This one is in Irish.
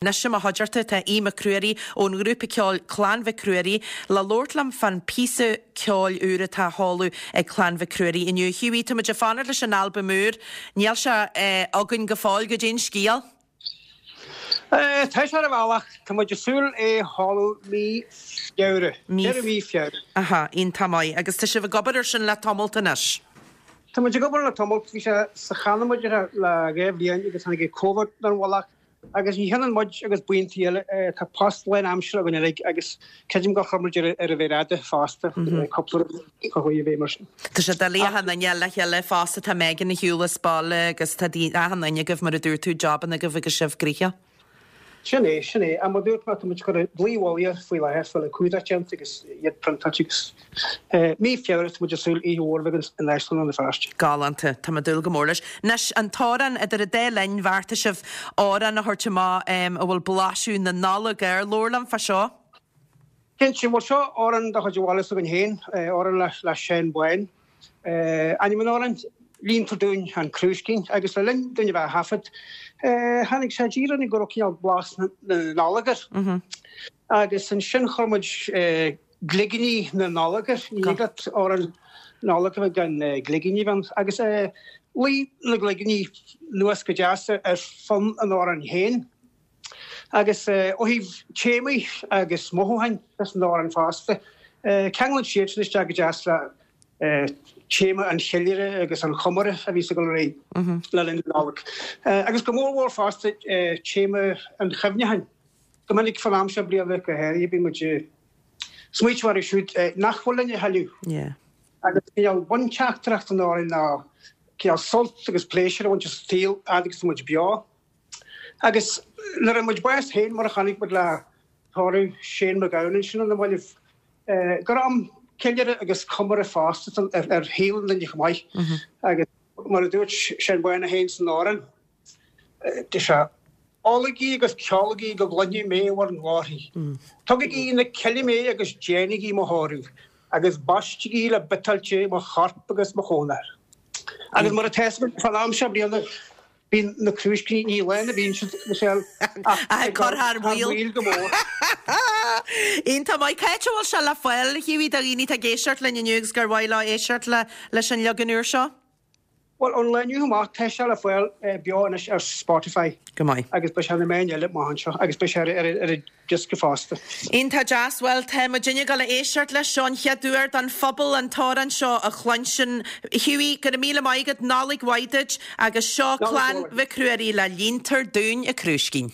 Anois i mo chuideachta tá Aodh Mac Ruairí ón ngrúpa ceoil Clann Mhic Ruairí le labhairt liom fán píosa ceoil úr atá á sheoladh ag Clann Mhic Ruairí inniu. A Hughie, tá muid ag fanacht leis an albam úr. Níl sé againn go fóill, goidé an scéal? Tá sé ar an bhealach. Tá muid ag súil é a sheoladh mí Feabhra. Deireadh mí Feabhra. Aha, iontach maith. Agus tá sibh ag obair ar sin le tamalt anois? Tá muid ag obair le tamalt. Bhí sé sa channa muid le 2 bhliain agus tháinig Covid ar an mhullach. Agus ní hionann muid agus buíontaí eile, tá post lán-aimseartha againn uilig agus creidim gur chuir muid ar an mhéar fhada fosta, cúpla rud a chuaigh i bhfeidhm air sin. Tá sé doiligh achan duine le chéile fosta, tá Megan ar shiúl as baile agus tá achan duine agaibh, mar a dúirt tú, jabanna agaibh agus sibh gnoitheach. Sin é, sin é. Ach mar a dúirt mé, tá muid ag cur dlaoi mhullaigh air faoi láthair, fáil an cumhdach déanta agus iad priontáilte agus mí Feabhra tá muid ag súil oíche mhór a bheith againn in Áislann Rann na Feirste. Galánta. Tá mé ag dúil go mór leis. Anois, an t-amhrán idir an dá linn, bheartaigh sibh amhrán a thabhairt amach a bhfuil blaiseadh na Nollag air. Labhair liom fá seo. Cinnte, bhuel seo amhrán de chuid an bhaile s'againn féin, amhrán le Seán Bán. Ainm an amhráin, Líontar Dúinn an Crúiscín, agus le linn dúinn a bheith á thaifead, tháinig sé i dtír orainn go raibh cineál blas na Nollag air. Agus ansin chuir muid gligíní na Nollag air, ní thig leat amhrán Nollag a bheith gan gligíní a bheith ann. Agus luigh na gligíní anuas go deas ar fonn an amhráin féin. Agus ó thaobh téamaí agus mothúcháin san amhrán fosta, ceanglann siad sin isteach go deas le téama an cheiliúradh agus an chomóradh a bhíos ag dul ar aghaidh le linn na Nollag. Agus go mór mhór fosta téama an chuimhneacháin. Go minic fán am seo bliana go háirithe bíonn muid ag smaoitiú orthu siúd nach bhfuil linn a thuilleadh. Agus cineál bunteachtaireacht an amhráin ná cineál sult agus pléisiúr a bhaint as an saol fhad agus tá muid beo. Agus nuair a fuair muid bás féin, mar a chonaic muid le tórramh Shane MacGowan ansin ar na mallaibh, gur am ceiliúradh agus comóradh fosta ar shaol an duine chomh maith. Agus mar a dúirt Seán Bán é féin san amhrán, deir sé, Ólaigí agus ceolaigí go gcluinfidh mé bhur nglórthaí. Tugaigí na cille mé agus déanaigí mo thórramh, agus baistigí le biotáilte mo chorp agus mo chónair. Agus mar atá fhios againn, fán am seo bliana, Bíonn na crúiscíní, ní lán a bhíonn siad, Michelle, ach ag cur thar maoil go mór. Iontach maith. Cá háit a bhfuil sé le fáil, a Hughie, do dhaoine atá ag éisteacht linn inniu agus gur mhaith leo éisteacht leis an leagan úr seo? Bhuel, ón lá inniu amach, tá sé le fáil beo anois ar Spotify. Go maith. Agus beidh sé ar na meáin eile amach anseo agus beidh sé ar an diosca fosta. Iontach deas. Bhuel, tá muidinne ag dul a éisteacht leis seo an chéad uair don phobal an t-amhrán seo a chluinstin. Hughie, go raibh míle maith agat, Nollaig mhaith duit agus seo Clann Mhic Ruairí le Líontar Dúinn an Crúiscín.